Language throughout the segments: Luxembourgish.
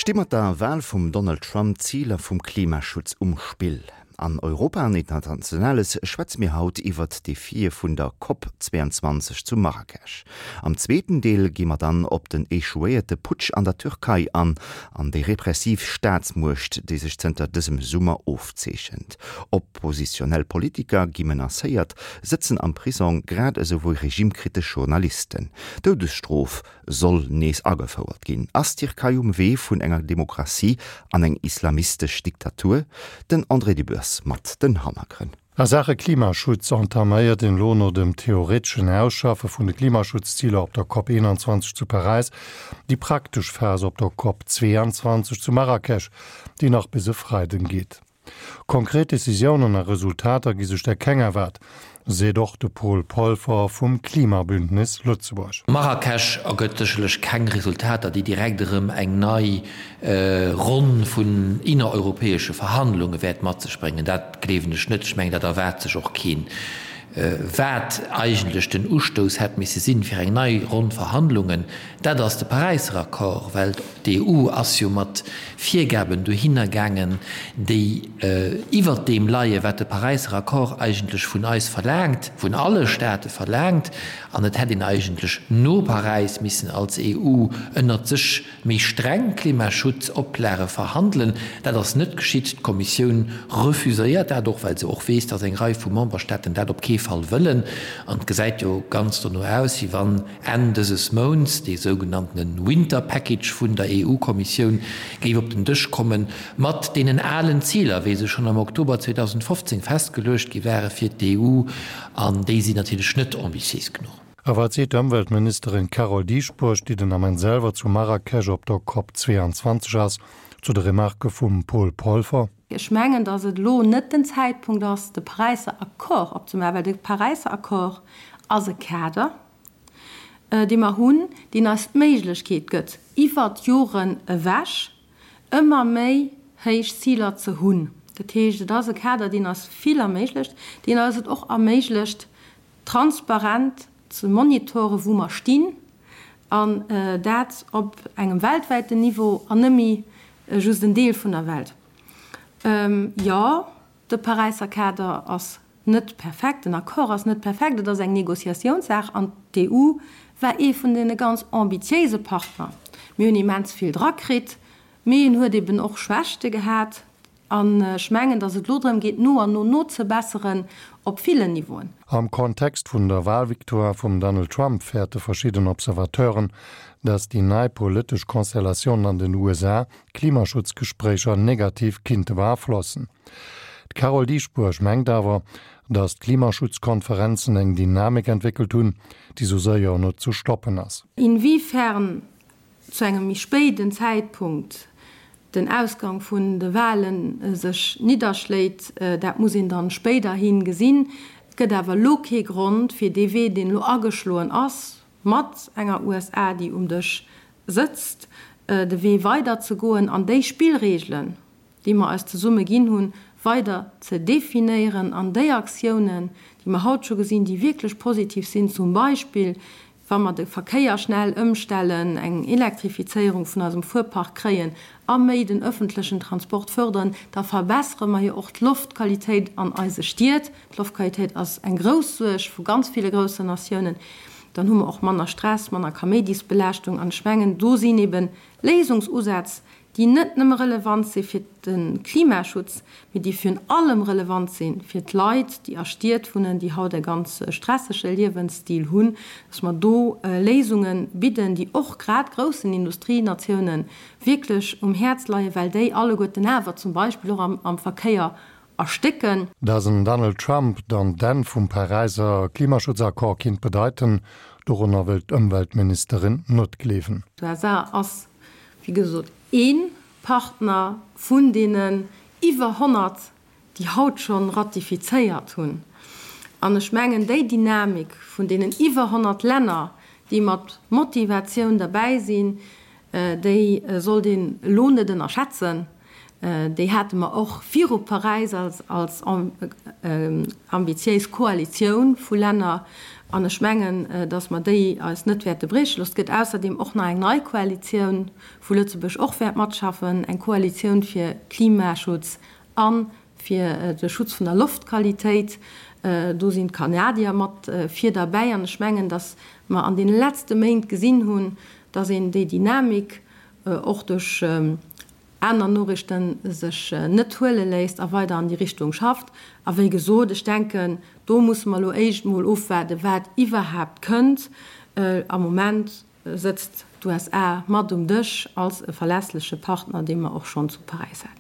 Sti mat der Wal vum Donald Trump d'Ziler vum Klimaschutz um Spill? An Europa an Internationales schwätze mir haut iwwert d'Defie vun der Cop 22 zu Marrakesch. Am zweeten Deel gi mer dann op den echouéierte Putsch an der Türkei an, an déi repressiv Staatsmuecht, déi sech zënter dësem Summer ofzeechent. Oppositionell Politiker gi menacéiert, sëtzen am Prisong, grad esou wéi regimekritesch Journalisten. D'Doudesstrof soll nees agefouert ginn. Ass d'Tierkei um Wee vun enger Demokratie an eng islamistesch Diktatur? Den André Dübbers mat den Hannergrënn. A Saache Klimaschutz entaméiert een elo no dem theoreteschen Ausschaffe vun de Klimaschutzziler op der Cop 21 zu Paräis déi praktesch Phas op der Cop 22 zu Marrakesch, déi nach bis e Freiden geet. Konkret Decisiounen a Resultater gi sech der keng erwaart, seet och de Paul Polfer vum Klimabündnis Lëtzebuerg. Marrakesch ergëtt sécherlech keng Resultater, déi direkt erëm eng nei Ronn vun innereuropäesche Verhandlunge wäert mat sech bréngen. Dat gleewen ech net. Ech mengen, dat erwaart sech och keen. Wat eigentlech den Ustouss hätt misse sinn fir eng nei Ronn Verhandlungen, dat ass de Paräisser Accord, well d'EU ass jo mat Virgaben dohinner gaangen, déi iwwert deem leie wat de Paräisser Accord eigentlech vun eis verlaangt, vun alle Staate verlaangt. An et hätt een eigentlech no Paräis missen als EU ënnert sech méi streng Klimaschutzoplage verhandelen. Dat ass net geschitt. D'Kommissioun refuséiert dat och, well se och weess, datt eng Rei vu Memberstaaten dat op kee Fall wëllen. An et gesäit jo ganz dono aus, wéi wann Enn dëses Mounts dee sougenanntene Winter Package vun der EU-Kommissioun géif op den Dësch kommen, mat deenen alen Ziler, wéi se schonn am Oktober 2015 festgeluecht gi ware fir d'EU. An déi sinn natierlech net ambitiéis genuch. A wat seet d'Ëmweltministerin Carole Dieschbourg, déi den Ament selwer zu Marrakesch op der Cop 22 ass, zu de Remarke vum Paul Polfer? Ech mengen, datt et elo net den Zäitpunkt ass, de Paräisser Accord opzemaachen, well de Paräisser Accord ass e Kader, dee mer hunn, deen eis d'Méiglechkeet gëtt, iwwert d'Joren ewech ëmmer méi héich Ziler ze hunn. Dat heescht, et ass e Kader, deen eis vill erméiglecht, deen eis et och erméiglecht, transparent ze monitoren, wou mer stinn, an dat op engem weltwäiten Niveau an net méi just en Deel vun der Welt. Jo, de Paräisser Kader ass net perfekt, den Accord ass net perfekt, et ass eng Négociatiounssaach an d'EU war ee vun deene ganz ambitiéise Partner. Mir hunn immens vill drakritt, mee en huet eben och Schwächte gehat. An ech mengen, datt et elo drëm geet, no an no nozebesseren op villen Niveauen. Am Kontext vun der Walvictoire vum Donald Trump fäerte verschidden Observateuren, datt déi nei politesch Konstellatioun an den USA d'Klimaschutzgespréicher negativ kinnte beaflossen. D'Carole Dieschbourg mengt awer, datt d'Klimaschutzkonferenzen eng Dynamik entwéckelt hunn, déi sou séier net ze stoppen ass. Inwiefern zu engem méi spéiden Zäitpunkt den Ausgang vun de Wahlen sech nidderschléit, dat muss een dann spéiderhi gesinn. Et gëtt awer elo kee Grond, fir dee Wee, deen elo ageschloen ass, mat enger USA, déi um Dësch sëtzt, de Wee weiderzegoen an déi Spillregelen, déi mer eis zesumme ginn hunn, weider ze definéieren an déi Aktiounen, déi mer haut scho gesinn, déi wierklech positiv sinn, zum Beispill wa mer de Verkéier schnell ëmstellen, eng Elektrifizéierung vun eisem Fuerpark kréien a méi den öffentlechen Transport fördern, da verbessere mer jo och d'Loftqualitéit an eise Stied. D'Loftqualitéit ass eng grouss Suerg vu ganz ville groussen Natiounen. Dann hu mer och manner Stress, manner Kaméidisbelaaschtung. An ech mengen, do sinn ebe Léisungsusätz, déi net nëmme relevant si fir de Klimaschutz, mee déi virun allem relevant si fir d'Leit, déi a Stied wunnen, déi haut e ganz stressege Liewensstil hunn, dass mer do Léisunge bidden, déi och grad groussen Industrienatiounen wierklech um Häerz leien, well déi alleguerten awer zum Beispill och am Verkéier erstécken. Dass en Donald Trump dann d'Enn vum Paräiser Klimaschutzaccord kinnt bedeiten, dorunner wëllt d'Ëmweltministerin net gleewen. D'USA ass wéi gesot, ee Partner vun deenen iwwer 100, déi haut scho ratifizéiert hunn. An ech mengen, déi Dynamik vun deenen iwwer 100 Länner, déi mat Motivatioun derbäi sinn, déi sollt een elo net ënnerschätzen. Déi hate mer och viru Paräis als ambitiéis Koalitioun vu Länner. An ech mengen, datt mer déi eis net wäerte brieche loossen. Et gëtt ausserdeem och nach eng nei Koalitioun, wou Lëtzebuerg och wäert matschaffen, eng Koalitioun fir Klimaschutz a fir de Schutz vun der Loftqualitéit. Do sinn d'Kanadier mat vir derbäi. An ech mengen, datt mer an deene letzte Méint gesinn hunn, datt een déi Dynamik och duerch aner Noriichten sech net huele léisst a weider an déi Richtung schafft. A wéi gesot, ech denken, do musse mer elo éischt emol ofwaarden, wat iwwerhaapt kënnt. Am Moment sëtzt d'USA mat um Dësch als e verlässleche Partner, dee mer och schonn zu Paräis haten.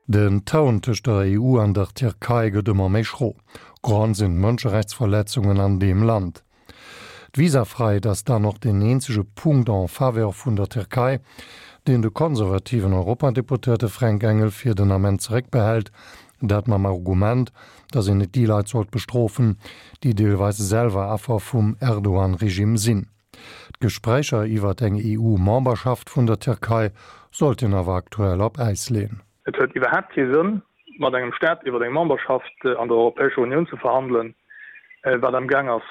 Den Toun tëscht der EU an der Tierkei gëtt ëmmer méi schro. Grond sinn d'Mënscherechtsverletzungen an deem Land. D'Visafreiheet ass dann och deen eenzege Punkt en faveur vun der Tierkei, deen de konservativen Europadeputéierte Fränk Engel fir den Ament zeréckbehält, dat mam Argument, datt een net déi Leit sollt bestrofen, déi deelweis selwer Affer vum Erdogan-Regime sinn. D'Gespréicher iwwert eng EU-Memberschaft vun der Tierkei sollten awer aktuell op Äis leeën. Et huet iwwerhaapt kee Sënn, mat engem Staat iwwer eng Memberschaft an der Europäescher Unioun ze verhandelen, wat am Gaang ass,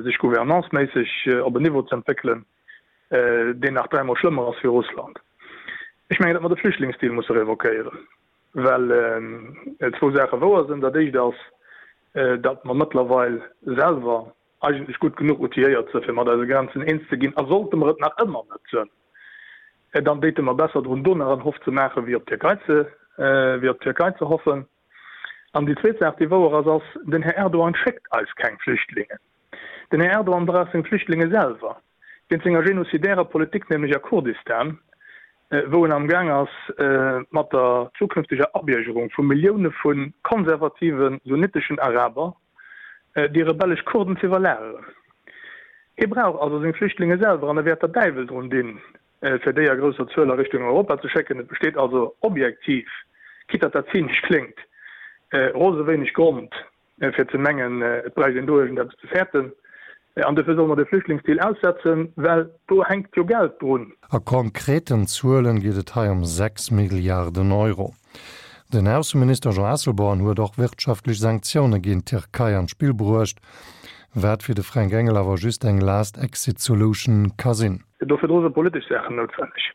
sech gouvernanceméisseg op en Niveau ze entwéckelen, deen nach dräimol schlëmmer ass wéi Russland. Ech mengen, datt mer de Flüchtlingsdeal musse revoquéieren, well zwou Saache wouer sinn. Dat Éischt ass, datt mer mëttlerweil selwer eigentlech gutt genuch outilléiert sënn, fir mat eise Grenzen eens ze ginn, a sollte mer et nach ëmmer net sënn, dann déite mer besser drun, do nach en Hoff ze maachen, wéi op d'Tierkei ze, wéi op d'Tierkei ze hoffen. An déi zweet Saach, déi wouer ass, ass, Den Här Erdogan schéckt eis keng Flüchtlingen. Den Här Erdogan brauch seng Flüchtlinge selwer, wéinst senger genocidärer Politik, nämlech a Kurdistan, wou en amgaang ass, mat der zukünfteger Abiergerung vu Millioune vu konservative sunniteschen Araber déi rebellesch Kurden ze iwwerlageren. Hie brauch also seng Flüchtlinge selwer an e wäert der Däiwel drun dinn, fir déi a grousser Zuel a Richtung Europa ze schécken. Et besteet also objektiv, quitte datt dat zynesch kléngt, rose wéineg Grond fir ze mengen, et bräicht een do iergendeppes ze fäerten. An dofir solle mer de Flüchtlingsdeal aussetzen, well do hänkt jo Geld drun. A konkreten Zuelen geet et hei ëm 6 Milliarden Euro. Den Ausseminister Jean Asselborn huet och wirtschaftlech Sanktioune géint d'Tierkei an d'Spill bruecht, wat fir de Fränk Engel awer just eng last exit solution ka sinn. Do virdru si politesch Saachen noutwenneg.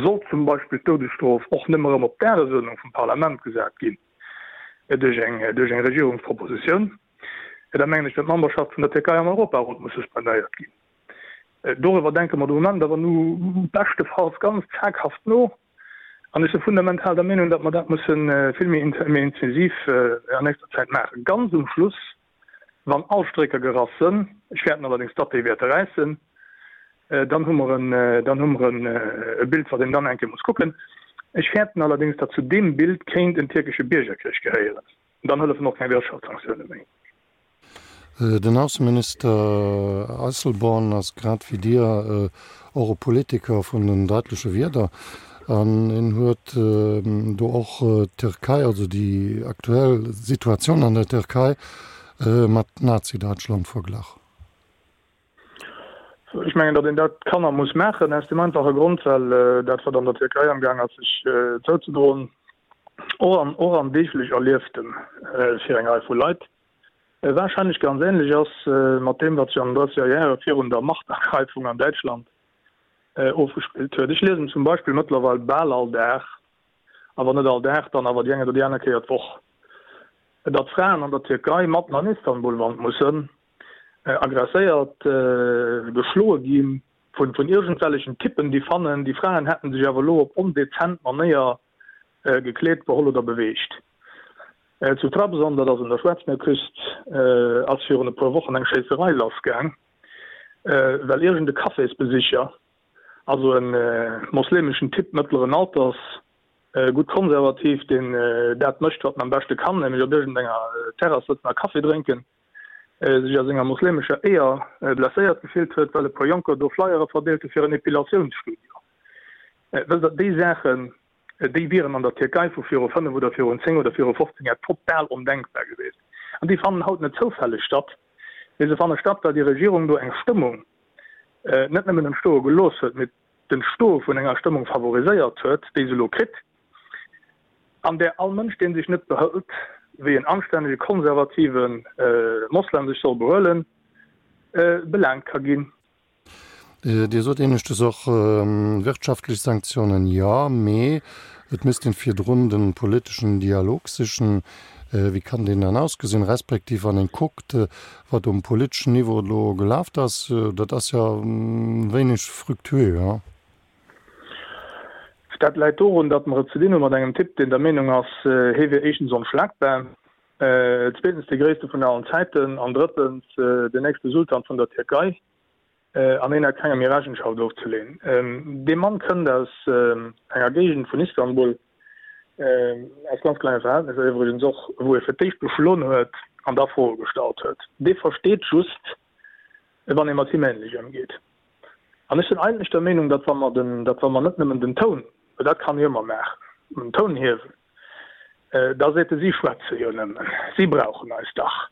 Sollt zum Beispill d'Doudesstrof och nëmme erëm op d'Dagesuerdnung vum Parlament gesat ginn duerch eng duerch eng Regierungspropositioun, da mengen ech, datt d'Memberschaft vun der Tierkei am Europarot muss suspendéiert ginn. Doriwwer denke mer de Moment awer nu beschtefalls ganz zaghaft no. An ech si fundamental der Meenung, datt mer dat musse vill méi intensiv an nächster Zäit maachen. Ganz um Schluss, wann all Strécker gerass sënn, ech fäerten allerdéngs, datt déi wäerte räissen, dann hu mer en, dann hu mer e Bild, wat een dann eng Kéier muss kucken. Ech fäerten allerdéngs, datt zu deem Bild kéint en tierkesche Biergerkrich gehéieren. Dann hëllefen och keng Wirtschaftssanktioune méi. Den Ausseminister Asselborn ass grad wéi Dir och e Politiker vun den deitleche Wierder an en huet do och d'Türkei, also déi aktuell Situatioun an der Türkei mat Nazi-Deutschland verglach. Ech mengen, datt een dat kann a muss maachen, aus deem einfache Grond, well dat, wat an der Tierkei amgaang ass sech zouzedroen, och am och am deeglech Erlieftem fir eng Rei vu Leit, wahrscheinlech ganz ähnlech ass mat deem, wat sech an den drësseger Jahre virun der Machtergreifung an Däitschland ofgespillt huet. Ech liesen zum Beispill mëttlerweil bal all Dag, a wann net all Dag, dann awer déi eng oder déi aner Kéier d'Woch, datt Fraen an der Tierkei matten an Istanbul wand mussen Agresséiert, geschloe gi vun iergendwellechen Typpen, déi fannen, déi Fraen hätten sech awer elo op ondezent Manéier gekleet, beholl oder beweegt. Zu Trabzon, dat ass un der Schwaarzmierküst, ass virun e puer Wochen eng Schéisserei lassgaang, well iergend e Cafésbesicher, also e moslemeschen Typ mëttleren Alters, gutt konservativ, deen dat mécht, wat en am beschte kann, nämlech op iergendenger Terrass sëtzen a Kaffi drénken, sech a senger moslemescher Éier blesséiert gefillt huet, well e puer Jonker do Flyere verdeelt hu fir en Epilatiounsstudio. Wësst Der, déi Saachen, déi wieren an der Tierkei vu viru fënnef oder virun zéng oder viru 15 Jar total ondenkbar gewiescht. An déi fannen haut net zoufälleg statt, mee se fanne statt, well déi Regierung do eng Stëmmung net nëmmen entstoe gelooss huet, mee d'Entstoe vun enger Stëmmung favoriséiert huet, déi se elo kritt, an där all Mënsch, dee sech net behëlt. wéi en anstännege konservative Moslem sech soll behuelen, belaangt ka ginn. Dir sot éineschtens och, wirtschaftlech Sanktiounen, jo, mee et misst een virdrun de politeschen Dialog sichen. Wéi kann deen dann ausgesinn, respektiv wann een kuckt, wat um politeschen Niveau elo gelaft ass, dat ass jo wéineg fructueux, hein? Dat läit dorun, datt mer et ze dinn hu mat engem Typ, deen der Meenung ass, hie wier éischtens onschlagbar, zweetens dee gréisste vun allen Zäiten an drëttens den nächste Sultan vun der Tierkei an hien hätt kengem méi Rechenschaft ofzeleen. Dee Mann kënnt aus enger Géigend vun Istanbul, aus ganz klenge Verhältnesser iwwregens och, wou e fir d'éischt geschloen huet an da Froe gestallt huet. Dee versteet just, wann ee mat him änlech ëmgeet. An ech sinn eigentlech der Meenung, datt wa mer den, datt wa mer net nëmmen den Toun, well dat kann ee ëmmer maachen, den Toun hiewen, da seet e, si schwätze jo nëmmen, si brauchen eis dach.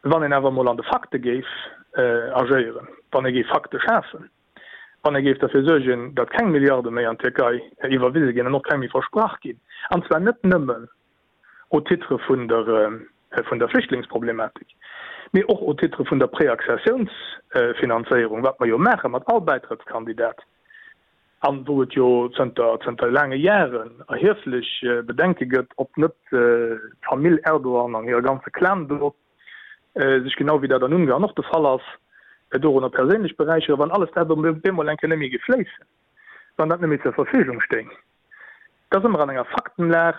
Wann een awer emol an de Fakte géif agéieren, wann ee géif Fakte schafen, wann ee géif derfir suergen, datt keng Milliarde méi an d'Tierkei iwwerwise ginn an och keng méi versprach ginn, an zwar net nëmmen au titre vun der vun der Flüchtlingsproblematik, mee och au titre vun der Préaccessiounsfinanzéierung, wat mer jo maache mat all Bäitrëttskandidat an wou et jo zënter zënter laange Jaren erhieflech Bedenke gëtt, ob net d'Famill Erdogan an hire ganze Clan do sech, genau wéi dat an Ungarn och de Fall ass, dorunner perséinlech beräicheren, wann alles dat op eemol eng Kéier net méi géif fléissen, wann dat net méi zur Verfügung stéing. Da si mer an enger Faktenlag,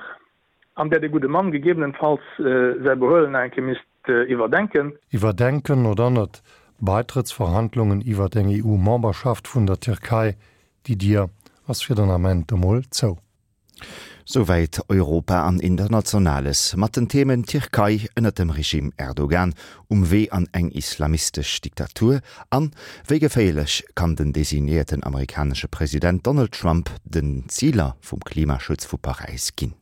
an där de gudde Mann gegebenenfalls säi Behuelen nach eng Kéier misst iwwerdenken. Iwwerdenken oder net? Baitrëttsverhandlungen iwwert eng EU-Memberschaft vun der Tierkei, déi Dier ass fir den Ament emol zou. Souwäit Europa an Internationales mat den Themen Tierkei ënnert dem Regime Erdogan um Wee an eng islamistesch Diktatur an wéi geféierlech kann den designéierten amerikanesche President Donald Trump den Ziler vum Klimaschutz vu Paräis ginn.